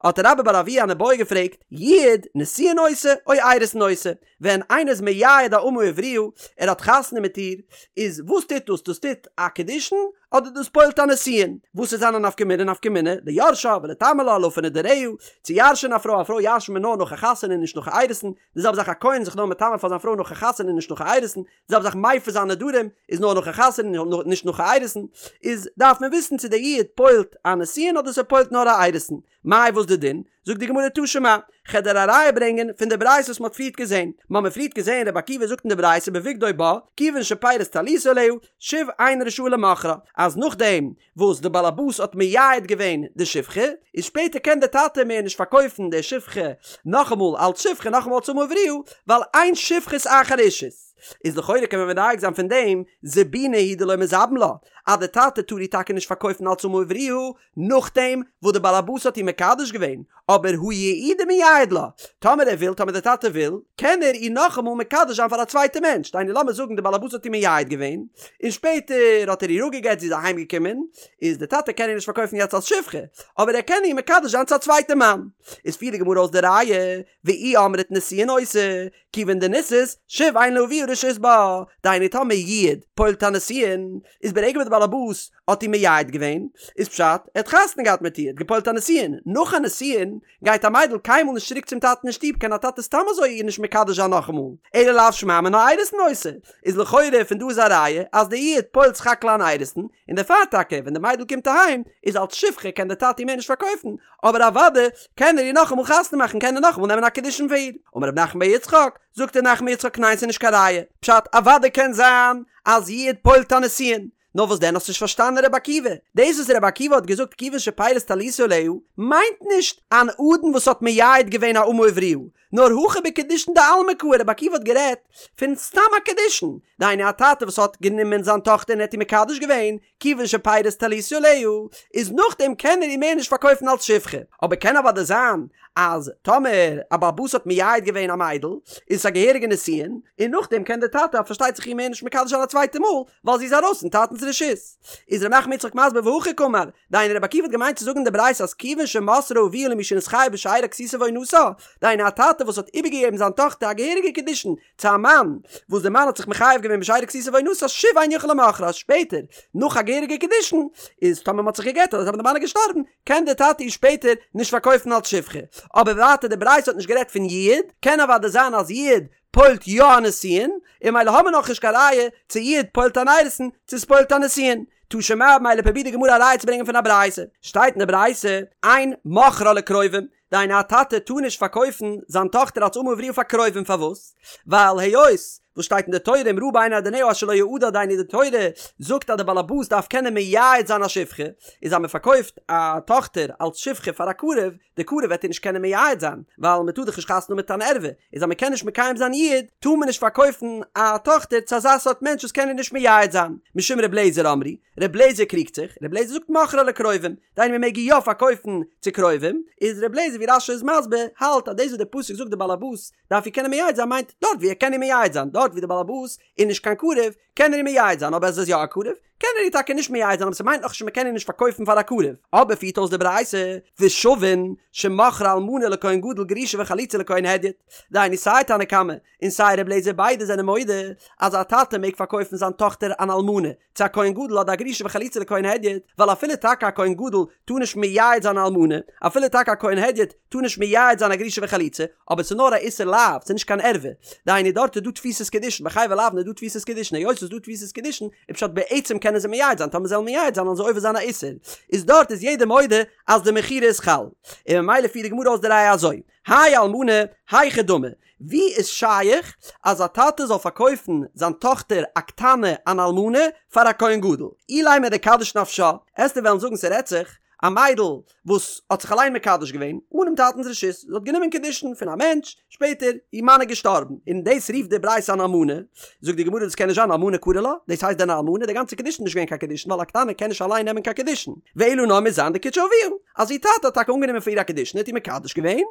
Speaker 1: האט רבה בר אבוה אן איבעיא געפרעגט, יעוד נישואין עושה או אירוסין עושה, ווען איינער איז מייעד א אמה עבריה, ער האט חתונה מיט איר, איז וואס טוט דאס? דאס טוט א קידושין אדער דאס פועל'ט א נישואין? וואס איז זיין א נפקא מינה? נפקא מינה ליורשה ולטמא לה להפר נדריה, צו ירש'ען א פרוי, א פרוי ירש'נט מען נאר נאך א חתונה און נישט נאך א אירוסין, די זעלבע זאך א כהן איז זיך נאר מטמא פאר זיין פרוי נאך א חתונה און נישט נאך א אירוסין, די זעלבע זאך מפר זיין נדרים איז נאר נאך א חתונה און נישט נאך א אירוסין, איז דארף מען וויסן צו דער יעוד פועל'ט א נישואין אדער ס'פועל'ט נאר א אירוסין. מאי וואס די דין? זאגט די גמרא תא שמע, כ'על דיר א ראיה ברענגען פון די ברייתא וואס מ'האט פריערט געזען, מ'האמיר פריערט געזען רבי עקיבא זאגט אין די ברייתא בבגדו בה, כיוון שפרס טליתו עליה, שוב אינו רשאי למוכרה, אז נאכדעם וואס די באלעבאס האט מייעד געווען די שפחה, איז שפעטער קען די טאטע מער נישט פארקויפן די שפחה נאכאמאל אלץ שפחה נאכאמאל אלץ אמה עבריה, ווייל אין שפחות אחר אישות. איז לכאורה קען מען מדייק זיין פון דעם, זבוני הוא דלא מזבין לה, אז די טאטע טאר איר טאקע נישט פארקויפן אלס אמה עבריה, נאכדעם וואס די באלעבאס האט איר מקדש געווען, אבער הא יעודי מייעד לה, טאמער ער וויל, טאמער די טאטע וויל, קען ער איר נאכאמאל מקדש זיין פאר א צווייטע מענטש, דהיינו לאמיר זאגן די באלעבאס האט איר מייעד געווען, און שפעטער האט ער איר אפגעגט זי איז אהיים געקומען, איז די טאטע קען איר נישט פארקויפן יעצט אלס שפחה, אבער ער קען איר מקדש זיין צו א צווייטע מאן. איז פירט די גמרא אויס די ראיה, ואי אמרת נישואין עושה, כיוון דנישאת, שוב אין לאביה רשות בה, דהיינו טאמער יעוד פועל'ט א נישואין, איז ברגע וואס די באלעבאס האט איר מייעד געווען, איז פשט, ער האט חתונה געהאט מיט איר, געפועל'ט א נישואין, נאך א נישואין, גייט א מיידל קיינמאל נישט צוריק צום טאטן אין שטוב, קען א טאטע סתם אזוי איר נישט מקדש זיין נאכאמאל, אלא לאו שמע מינה אירוסין עושה, איז לכאורה פון דא איז א ראיה אז די יעוד פועל'ט סך הכל אן אירוסין, און דערפאר טאקע ווען די מיידל קומט אהיים, איז אלס שפחה קען די טאטע איר מער נישט פארקויפן, אבער אוודאי קען ער איר נאכאמאל חתונה מאכן קען ער נאכאמאל נעמען א קידושין פאר איר. אמר רב נחמן בר יצחק, זאגט רב נחמן בר יצחק ניין ס'איז נישט קיין ראיה, פשט אוודאי קען זיין אז יעוד פועל'ט א נישואין, נאר וואס דען האסט נישט פארשטאנען רבי עקיבא? דאס וואס רבי עקיבא האט געזאגט כיוון שפירש טליתו עליה מיינט נישט אן אדון וואס האט מייעד געווען א אמה עבריה, נאר הכא בקידושין דעלמא קאי, רבי עקיבא האט גערעדט פון סתם א קידושין, דהיינו א טאטע וואס האט גענומען זיין טאכטער און ער האט איר מקדש געווען, כיוון שפירש טליתו עליה, איז נאכדעם קען ער איר מער נישט פארקויפן אלס שפחה, אבער קען אוודאי זיין אז טאמער א בעל הבית האט מייעד געווען א מיידל, איז עס א געהעריגע נישואין, און נאכדעם קען דער טאטע פארשטייט זיך איר מער נישט מקדש זיין א צווייטע מאל, ווייל זי איז ארויס פון טאטנ'ס רשות. איז ר' נחמן יצחק מסביר והכי קאמר, דהיינו רבי עקיבא האט געמיינט צו זאגן אין די ברייתא אז כיוון שמסרה אביה למי שנתחייב בשארה כסותה ועונתה, דהיינו א טאטע וואס האט איבערגעגעבן זיין טאכטער א געהעריגע קידושין צו א מאן, וואס דער מאן האט זיך מחייב געווען בשארה כסותה ועונתה שוב אין יכול למוכרה אז שפעטער נאך א געהעריגע קידושין איז טאמער מען האט זיך גע'גט אדער טאמער די מאן איז געשטארבן קען דער טאטע איר שפעטער נישט פארקויפן אלס שפחה. אבער ווייטער די ברייתא האט נישט גערעדט פון יעוד, קען אוודאי זיין אז יעוד פועל'ט יא א נישואין, און ממילא האמיר נאכנישט קיין ראיה צו יעוד פועל'ט אן אירוסין צו ס'פועל'ט א נישואין. תא שמע ממילא פרובירט די גמרא א ראיה צו ברענגען פון א ברייתא. שטייט אין די ברייתא, אין מוכרה לקרובים, דהיינו א טאטע טאר נישט פארקויפן זיין טאכטער אלס אמה עבריה פאר קרובים פארוואס? ווייל היות וואס שטייט אין די תורה אם רעה בעיני אדוניה אשר לא יעדה דהיינו די תורה זאגט אז די באלעבאס דארף קענען מייעד זיין א שפחה איז אז מען פארקויפט א טאכטער אלס שפחה פאר א קרוב די קרוב וועט איר נישט קענען מייעד זיין ווייל מען טאר דאך נישט חתונה האבן מיט אן ערווה איז אז מען קען נישט מקיים זיין יעוד טאר מען נישט פארקויפן א טאכטער צו אזא סארט מענטש וואס קען איר נישט מייעד זיין משום ר' לעזער אמרו ר' לעזער קריגט זיך ר' לעזער זאגט מוכרה לקרובים דהיינו מען מעג איר יא פארקויפן צו קרובים, איז ר' לעזער ווי רש"י איז מסביר, האלט אז דאס וואס דער פסוק זאגט די באלעבאס דארף איר קענען מייעד זיין מיינט דארט ווי ער קען איר מייעד זיין, דארט ווי די באלעבאס איז נישט קיין קרוב קען ער איר מייעד זיין אבער אז ער איז יא א קרוב קען ער איר טאקע נישט מייעד זיין אבער ס'מיינט נאכנישט אז מ'קען איר נישט פארקויפן פאר א קרוב, אבער פירט אויס די ברייתא ושווין שמוכרה אלמנה לכהן גדול גרושה וחלוצה לכהן הדיוט, דהיינו סיי תנא קמא און סיי ר' לעזער ביידע זענען מודה אז א טאטע מעג פארקויפן זיין טאכטער אן אלמנה צו א כהן גדול אדער א גרושה וחלוצה לכהן הדיוט, ווייל אפילו טאקע א כהן גדול טאר נישט מייעד זיין א אלמנה, אפילו טאקע א כהן הדיוט טאר נישט מייעד זיין א גרושה וחלוצה, אבער ס'איז נאר א איסור לאו, ס'איז נישט קיין ערווה. דהיינו דארט איז דא תפיסת קידושין, ביי חייבי לאוין איז דא תפיסת קידושין, היות ס'איז דא תפיסת קידושין, איז פשט בעצם קענען זיי מייעד זיין, טאמער זיי וועלן מייעד זיין וועלן זיי עובר זיין א איסור, איז דארט איז יעדער מודה אז די מכירה איז חל. און ממילא פירט די גמרא אויס די ראיה אזוי, האי אלמנה, היכי דמי, ווי איז שייך אז א טאטע זאל פארקויפן זיין טאכטער א קטנה אן אלמנה פאר א כהן גדול? אילימא דקדיש נפשה, עסטו וועלן זאגן ס'רעדט זיך א מיידל וואס האט זיך אליין מקדש געווען אנעם טאטנ'ס רשות, זי האט גענומען קידושין פון א מענטש, שפעטער איר מאן איז געשטארבן, און דאס רופט די ברייתא אן אלמנה, זאגט די גמרא דאס קען נישט זיין אלמנה קרי לה, דאס הייסט דען א אלמנה? די גאנצע קידושין איז נישט געווען קיין קידושין ווייל א קטנה קען נישט אליין נעמען קיין קידושין, ואלא נאר מוז זיין דקידשה אביה, אז איר טאטע האט טאקע אנגענומען פאר איר א קידושין האט איר מקדש געווען,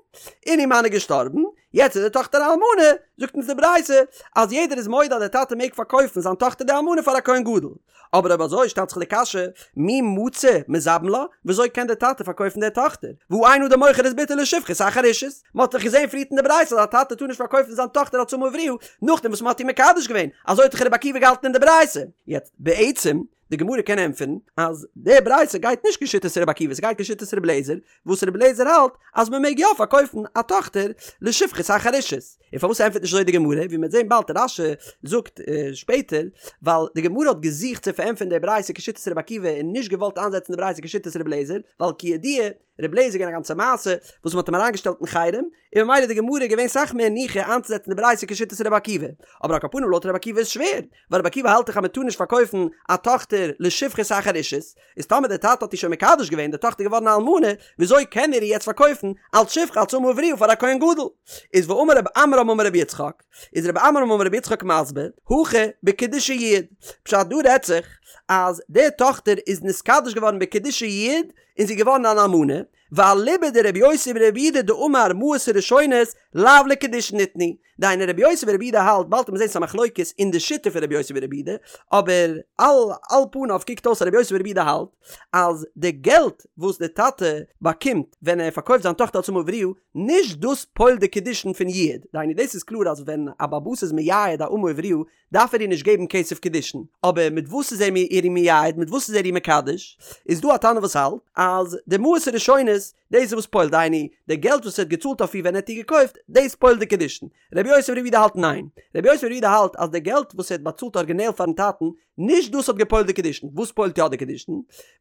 Speaker 1: און איר מאן איז געשטארבן, יעצט איז די טאכטער א אלמנה, זאגט אונז די ברייתא אז יעדער איז מודה אז דער טאטע מעג פארקויפן זיין טאכטער די אלמנה פאר א כהן גדול. אבער אויב אזוי שטעלט זיך די קשיא, מי מצי מזבין לה, וויאזוי קען דער טאטע פארקויפן דער טאכטער, והא אין אדם מוכר את בתו לשפחות אחר אישות, מען האט דאך געזען פריערט אין די ברייתא אז א טאטע טאר נישט פארקויפן זיין טאכטער אלס אמה עבריה נאכדעם וואס מען האט איר מקדש געווען, אזוי האט דאך רבי עקיבא געהאלטן אין די ברייתא. יעצט בעצם די גמרא קען ענטפערן אז די ברייתא גייט נישט כשיטת רבי עקיבא ס'גייט כשיטת רבי אליעזר, וואס רבי אליעזר האלט אז מען מעג יא פארקויפן א טאכטער לשפחות אחר אישות, און פארוואס ענטפערט נישט אזוי די גמרא, ווי מ'וועט זען באלד רש"י זאגט שפעטער, ווייל די גמרא האט געזוכט צו פארענטפערן די ברייתא כשיטת רבי עקיבא און נישט געוואלט איינזעצן די ברייתא כשיטת רבי אליעזר, ווייל כידוע. ר' אליעזר איז געווען א גאנצע מעשה וואס מ'האט אים אריינגעשטעלט אין חרם, און ממילא איז די גמרא געווען סאך מער ניחא איינצוזעצן די ברייתא כשיטת ר' עקיבא. אבער על כל פנים לויט ר' עקיבא איז שווער, ווייל ר' עקיבא האלט דאך אז מ'טאר נישט פארקויפן א טאכטער לשפחות אחר אישות, איז טאמער דער טאטע האט איר שוין מקדש געווען, די טאכטער איז געווארן א אלמנה, וויאזוי קען ער איר יעצט פארקויפן אלץ שפחה אלץ אמה עבריה פאר א כהן גדול? איז ואמר רב עמרם אמר רבי יצחק, איז רב עמרם אמר רבי יצחק מסביר, הכא בקידושי יעוד, פשט דא רעדט זיך אז די טאכטער איז נתקדש געווארן בקידושי יעוד און זי איז געווארן אן אלמנה, ואליבא דרבי יוסי ברבי יהודה דאמר מעות הראשונות לאו לקידושין ניתנו, דהיינו רבי יוסי ברבי יהודה האלט, באלד וועט מען זען ס'איז א מחלוקת אין די שיטה פון רבי יוסי ברבי יהודה, אבער על על פניו קוקט אויס אז רבי יוסי ברבי יהודה האלט אז די געלט וואס די טאטע באקומט ווען ער פארקויפט זיין טאכטער אלס אמה עבריה, נישט דאס פועל'ט די קידושין פון יעוד, דהיינו דאס איז קלאר אז ווען א בעל הבית איז מייעד א אמה עבריה דארף ער איר נישט געבן כסף קידושין, אבער מיט וואס איז ער איר מייעד, מיט וואס איז ער איר מקדש, איז דא א תנא וואס האלט אז די מעות הראשונות דאס איז וואס פועל'ט, דהיינו די געלט וואס ער האט געצאלט אויף איר ווען ער האט איר געקויפט, דאס פועל'ט די קידושין. רבי יוסי ברבי יהודה האלט ניין. רבי יוסי ברבי יהודה האלט אז די געלט וואס ער האט באצאלט ארגינעל פארן טאטן, נישט דאס האט געפועל'ט די קידושין. וואס פועל'ט יא די קידושין?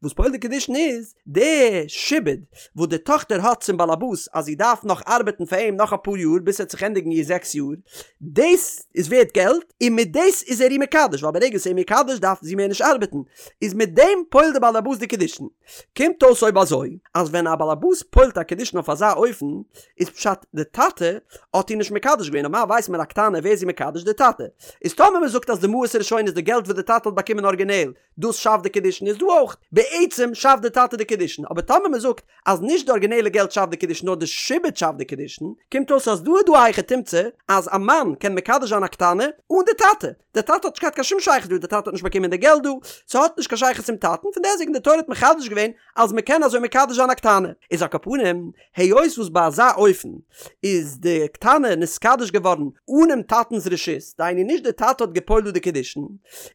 Speaker 1: וואס פועל'ט די קידושין איז די שעבוד וואס די טאכטער האט צום באלעבאס אז זי דארף נאך ארבעטן פאר אים נאך אפאר יאר ביז ס'וועט זיך ענדיגן איר זעקס יאר, דאס איז ווערט געלט, און מיט דאס איז ער איר מקדש, ווייל ברגע ס'איז איר מקדש דארף זי מער נישט ארבעטן, איז מיט דעם פועל'ט די באלעבאס די קידושין. קומט אויס אויב אזוי, אז ווען א באלעבאס פועל'ט א קידושין אויף אזא אופן, איז פשט די טאטע האט איר נישט מקדש געווען, נארמאל ווייסט מען א קטנה ווער איז זי מקדש? די טאטע. איז טאמער מען זאגט אז די מעות הראשונות די געלט וואס די טאטע האט באקומען ארגינעל, דאס שאפט די קידושין איז דא אויך, בעצם שאפט די טאטע די קידושין, אבער טאמער מען זאגט אז נישט די ארגינעלע געלט שאפט די קידושין נאר די שעבוד שאפט די קידושין, קומט אויס אז דא איז דא א היכי תמצא אז א מאן קען מקדש זיין א קטנה אן די טאטע, דער טאטע האט נישט געהאט קיין שום שייכות דא, דער טאטע האט נישט באקומען די געלט דא, ס'האט נישט קיין שייכות צום טאטן, פון דעסטוועגן די תורה האט מחדש געווען אז מ'קען אזוי מקדש זיין א קטנה. איז על כל פנים, היות וואס ביי אזא אופן איז די קטנה נתקדש געווארן אנעם טאטנ'ס רשות, דהיינו נישט דער טאטע האט גע'פועל'ט דא די קידושין,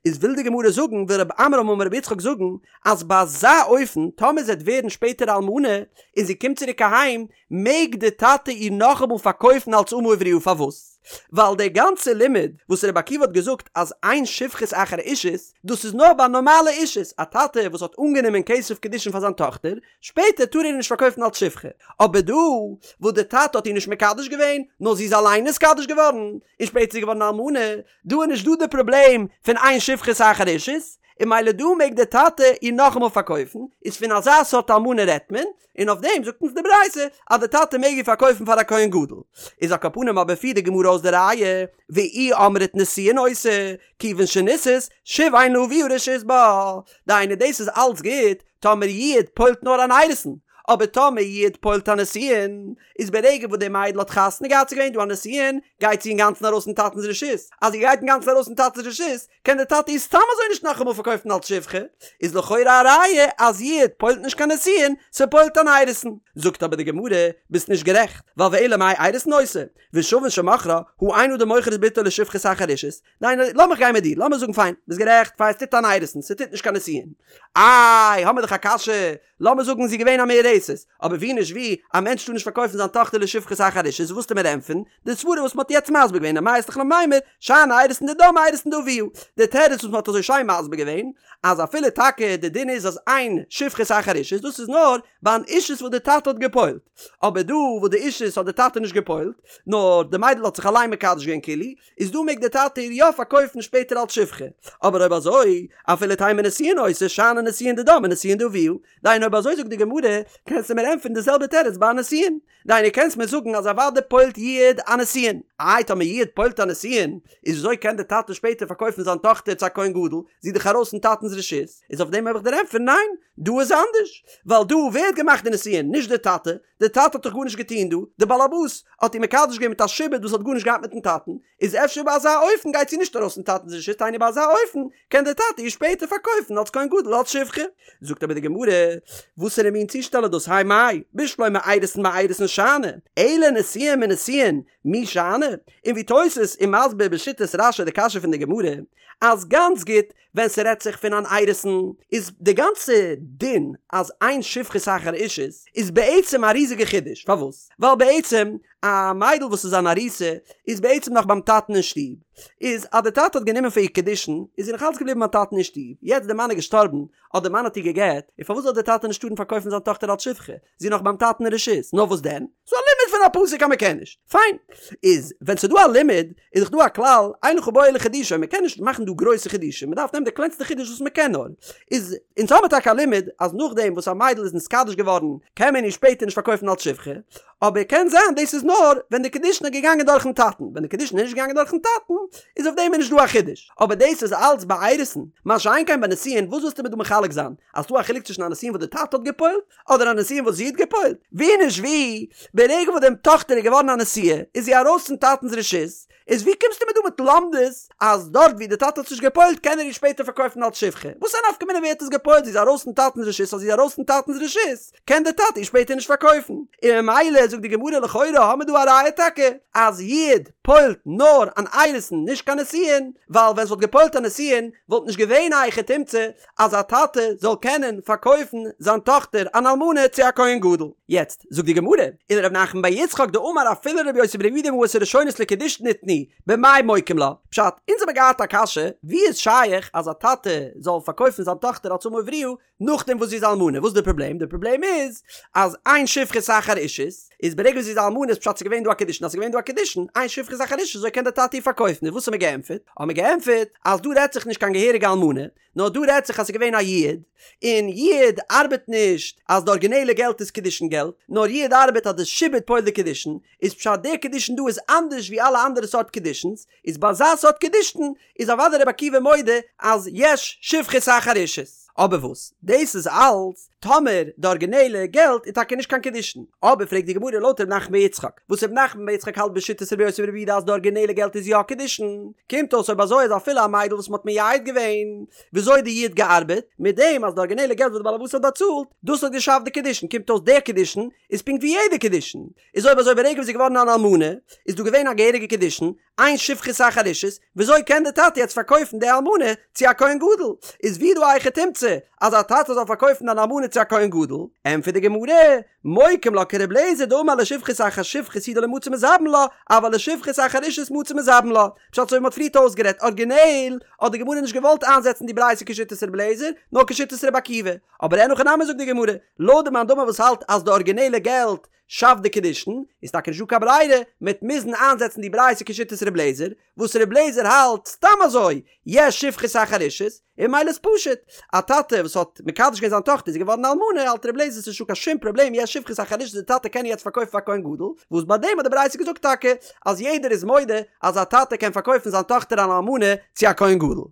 Speaker 1: איז וויל די גמרא זאגן, וויל רב עמרם אמר רבי יצחק זאגן, אז ביי אזא אופן, טאמער זי וועט ווערן שפעטער אלמנה, און זי קומט צוריק אהיים, מעג די טאטע איר נאכאמאל פארקויפן אלס אמה עבריה פארוואס? ווייל דער גאנצער לימוד וואס רבי עקיבא האט געזאגט אז אין שפחות אחר אישות דאס איז נאר ביי נארמאלע אישות, א טאטע וואס האט אנגענומען כסף קידושין פאר זיין טאכטער, שפעטער טאר ער איר נישט פארקויפן אלס שפחה, אבער דא וואס די טאטע האט איר נישט מקדש געווען, נאר זי איז אליין נתקדש געווארן, און שפעטער איז זי געווארן א אלמנה, דא איז נישט דא די פראבלעם פון אין שפחות אחר אישות, און ממילא דא מעג די טאטע איר נאכאמאל פארקויפן, איז פון אזא סארט אלמנה רעדט מען, און אויף דעם זאגט אונז די ברייתא אז די טאטע מעג איר פארקויפן פאר א כהן גדול. איז על כל פנים אבער פירט די גמרא אויס די ראיה, ואי אמרת נישואין עושה, כיוון שנישאת, שוב אין לאביה רשות בה. דהיינו דאס איז אלץ גוט טאמער יעוד פועל'ט נאר אן אירוסין, אבער טאמער יעוד פועל'ט א נישואין, איז ברגע וואס די מיידל האט חתונה געהאט ס'איז געווען דא א נישואין, גייט זי אינגאנצן ארויס פון טאטנ'ס רשות, אז זי גייט אינגאנצן ארויס פון טאטנ'ס רשות, קען דער טאטע איר סתם אזוי נישט נאכאמאל פארקויפן אלס שפחה, איז לכאורה א ראיה אז יעוד פועל'ט נישט קיין נישואין, ס'פועל'ט אן אירוסין. זאגט אבער די גמרא, ביסט נישט גערעכט, ווייל ואלא מאי אירוסין עושה, ושוין שמכרה, הא אין אדם מוכר את בתו לשפחות אחר אישות, ניין, לאמיך גיין מיט דיר, לאמיר זאגן פיין, ביסט גערעכט, פיין, ס'טוט אן אירוסין, ס'טוט נישט קיין נישואין. איי, האמיר דאך א קשיא, לאמיר זאגן זי איז געווען א מאורסת, אבער ווי נישט ווי, א מענטש טאר נישט פארקויפן זיין טאכטער לשפחות אחר אישות, וואס וועסטו מיר ענטפערן? די סברה וואס מ'האט יעצט מסביר געווען, אמאי אית לך למימר, שאני אירוסין דידה מאירוסין דאבוה. די תירוץ וואס מ'האט אזוי שיין מסביר געווען, אז אפילו טאקע די דין איז אז אין שפחות אחר אישות, דאס איז נאר ביי אן אישות וואס די טאטע האט גע'פועל'ט. אבער דא וואס די אישות האט די טאטע נישט גע'פועל'ט, נאר די מיידל האט זיך אליין מקדש געווען כאילו, איז דא מעג די טאטע איר יא פארקויפן שפעטער אלס שפחה. אבער אויב אזוי, אפילו תימא נישואין עושה, שאני נישואין דידה מנישואין דאבוה. דהיינו אויב אזוי זאגט די גמרא, קענסטו מיר ענטפערן די זעלבע תירוץ ביי א נישואין. דהיינו קענסט מיר זאגן אז אוודאי פועל'ט יעוד א נישואין. איי טאמער יעוד פועל'ט א נישואין, איז וויאזוי קען די טאטע שפעטער פארקויפן זיין טאכטער צו א כהן גדול, זי איז דאך ארויס פון טאטנ'ס רשות, איז אויף דעם האב איך דיר ענטפערן ניין, דא איז אנדערש, ווייל דא ווער האט געמאכט די נישואין, נישט די טאטע, די טאטע האט דאך גארנישט געטון דא, די באלעבאס האט איר מקדש געווען מיט א שעבוד וואס האט גארנישט געהאט מיטן טאטן, איז אפשר ביי אזא אופן גייט זי נישט ארויס פון טאטנ'ס רשות, דהיינו ביי אזא אופן קען דער טאטע איר שפעטער פארקויפן אלס כהן גדול אלס שפחה. זאגט אבער די גמרא, וואסערע מין צושטעל איז דאס האי מאי, בשלמא אירוסין מאירוסין שאני, אלא נישואין מנישואין, מי שאני? און ווי תוס' איז מסביר בשיטת רש"י די קשיא פון די גמרא, אז גאנץ גוט ווען ס'רעדט זיך פון אן אירוסין, איז די גאנצע דין אז אין שפחות אחר אישות איז בעצם א ריזיגע חידוש, פארוואס? ווייל בעצם א מיידל וואס איז אן ארוסה איז בעצם נאך ביים טאטן אין שטוב, איז אז די טאטע האט גענומען פאר איר קידושין איז זי נאך אלץ געבליבן ביים טאטן אין שטוב, יעצט די מאן איז געשטארבן אדער די מאן האט איר גע'גט, און פארוואס זאל די טאטע נישט טארן פארקויפן זיין טאכטער אלס שפחה? זי איז נאך ביים טאטן אין רשות, נאר וואס דען? ס'דא א לימוד פון א פסוק אז מ'קען נישט. פיין. איז ווען ס'דא א לימוד, איז דאך דא א כלל, אין לך בו אלא חידושו, מ'קען נישט מאכן דא גרויסע חידושים, מ'דארף נעמען די קלענסטע חידוש וואס מ'קען נאר. איז אונז האמיר טאקע א לימוד אז נאכדעם וואס א מיידל איז נתקדש געווארן קען מען איר שפעטער נישט פארקויפן אלס שפחה, אבער קען זיין דאס איז נאר ווען די קידושין איז געגאנגען דורכן טאטן, ווען די קידושין איז נישט געגאנגען דורכן טאטן איז אויף דעם איז נישט דא א חידוש, אבער דאס איז אלץ ביי אירוסין, מה שאין כן ביי נישואין, וואס ווילסטו מיר דא מחלק זיין? אז ס'דא א חילוק צווישן א נישואין וואס די טאטע האט גע'פועל'ט, אדער א נישואין וואס זי האט גע'פועל'ט? ווי נישט ווי, ברגע וואס דעם טאכטער איז געווארן א נשואה, איז זי ארויס פון טאטנ'ס רשות, איז ווי קומסטו מיר דא מיט לומדות אז דארט ווי די טאטע האט עס נישט גע'פועל'ט קען ער איר שפעטער פארקויפן אלס שפחה? וואס א נפקא מינה ווער האט עס גע'פועל'ט, זי איז ארויס פון טאטנ'ס רשות אז זי איז ארויס פון טאטנ'ס רשות קען די טאטע איר שפעטער נישט פארקויפן, און ממילא זאגט די גמרא לכאורה האמיר דא א ראיה טאקע אז יעוד פועל'ט נאר אן אירוסין נישט קיין נישואין, ווייל ווען ס'וואלט גע'פועל'ט א נישואין וואלט נישט געווען א היכי תמצא אז א טאטע זאל קענען פארקויפן זיין טאכטער אן אלמנה צו א כהן גדול. יעצט זאגט די גמרא, ולר' נחמן בר יצחק דאמר אפילו לר' יוסי בר' יהודה מעות הראשונות לקידושין ניתנו, במאי מוקים לה? פשט, אונז האמיר געהאט א קשיא, ווי איז שייך אז א טאטע זאל פארקויפן זיין טאכטער אלס אמה עבריה נאכדעם וואס זי איז אלמנה, וואס איז די פראבלעם? די פראבלעם איז אז אין שפחות אחר אישות, איז ברגע וואס זי איז אלמנה איז פשט ס'איז געווען דא א קידושין, אז ס'איז געווען דא א קידושין, אין שפחות אחר אישות, אזוי קען די טאטע איר פארקויפן, איז וואס האמיר געענטפערט? האמיר געענטפערט אז דא רעדט זיך נישט קיין געהעריגע אלמנה, נאר דא רעדט זיך אז ס'איז געווען א יעוד, און יעוד ארבעט נישט אז די ארגינעלע געלט איז קידושין געלט, נאר יעוד ארבעט אז די שעבוד פועל'ט די קידושין, איז פשט די קידושין דא איז אנדערש ווי אלע אנדערע סארט קידושין'ס, איז ביי אזא סארט קידושין איז אוודאי רבי עקיבא מודה אז יש שפחות אחר אישות. אבער וואס? דאס איז אלץ טאמער די ארגינעלע געלט איז טאקע נישט קיין קידושין. אבער פרעגט די גמרא לויט ר' נחמן בר יצחק, וואס ר' נחמן בר יצחק האלט בשיטת רבי יוסי ברבי יהודה אז די ארגינעלע געלט איז יא קידושין, קומט אויס אויב אזוי אז אפילו א מיידל וואס מ'האט מייעד געווען, וויאזוי האט די יעוד געארבעט? מיט דעם אז די ארגינעלע געלט וואס די בעל הבית האט באצאלט, דאס האט געשאפט די קידושין, קומט אויס דער קידושין איז פונקט ווי יעדע קידושין. איז אויב אזוי ברגע וואס זי איז געווארן אן אלמנה, איז דא געווען א געהעריגע קידושין, אין שפחות אחר אישות, וויאזוי קען די טאטע יעצט פארקויפן די אלמנה צו א כהן גדול? איז ווי דא א היכי תמצא אז א טאטע זאל פארקויפן אן אלמנה צו א כהן גדול? ענטפערט די גמרא, מוקים לה כר' אליעזר דאמר לשפחות אחר שפחות הוא דלא מצי מזבין לה, אבל לשפחות אחר אישות מצי מזבין לה. פשט אזוי ווי מ'האט פריערט אויסגערעדט, ארגינעל האט די גמרא נישט געוואלט איינזעצן די ברייתא כשיטת ר' אליעזר, נאר כשיטת ר' עקיבא. אבער אין הכי נמי זאגט די גמרא, לויט די מאן דאמר וואס האלט אז די ארגינעלע געלט שאפט די קידושין, איז טאקע נישט דא קיין ברירה, מ'עט מוזן איינזעצן די ברייתא כשיטת ר' לעזער, וואס ר' לעזער האלט סתם אזוי, יש שפחות אחר אישות, און ממילא איז פשוט, א טאטע וואס האט מקדש געווען זיין טאכטער איז געווארן אלמנה, האלט ר' לעזער ס'נישט דא קיין שום פראבלעם יש שפחות אחר אישות די טאטע קען יעצט פארקויפן פאר כהן גדול, וואס ביי דעם האט די ברייתא געזאגט טאקע אז יעדער איז מודה אז א טאטע קען פארקויפן זיין טאכטער אן אלמנה צו א כהן גדול.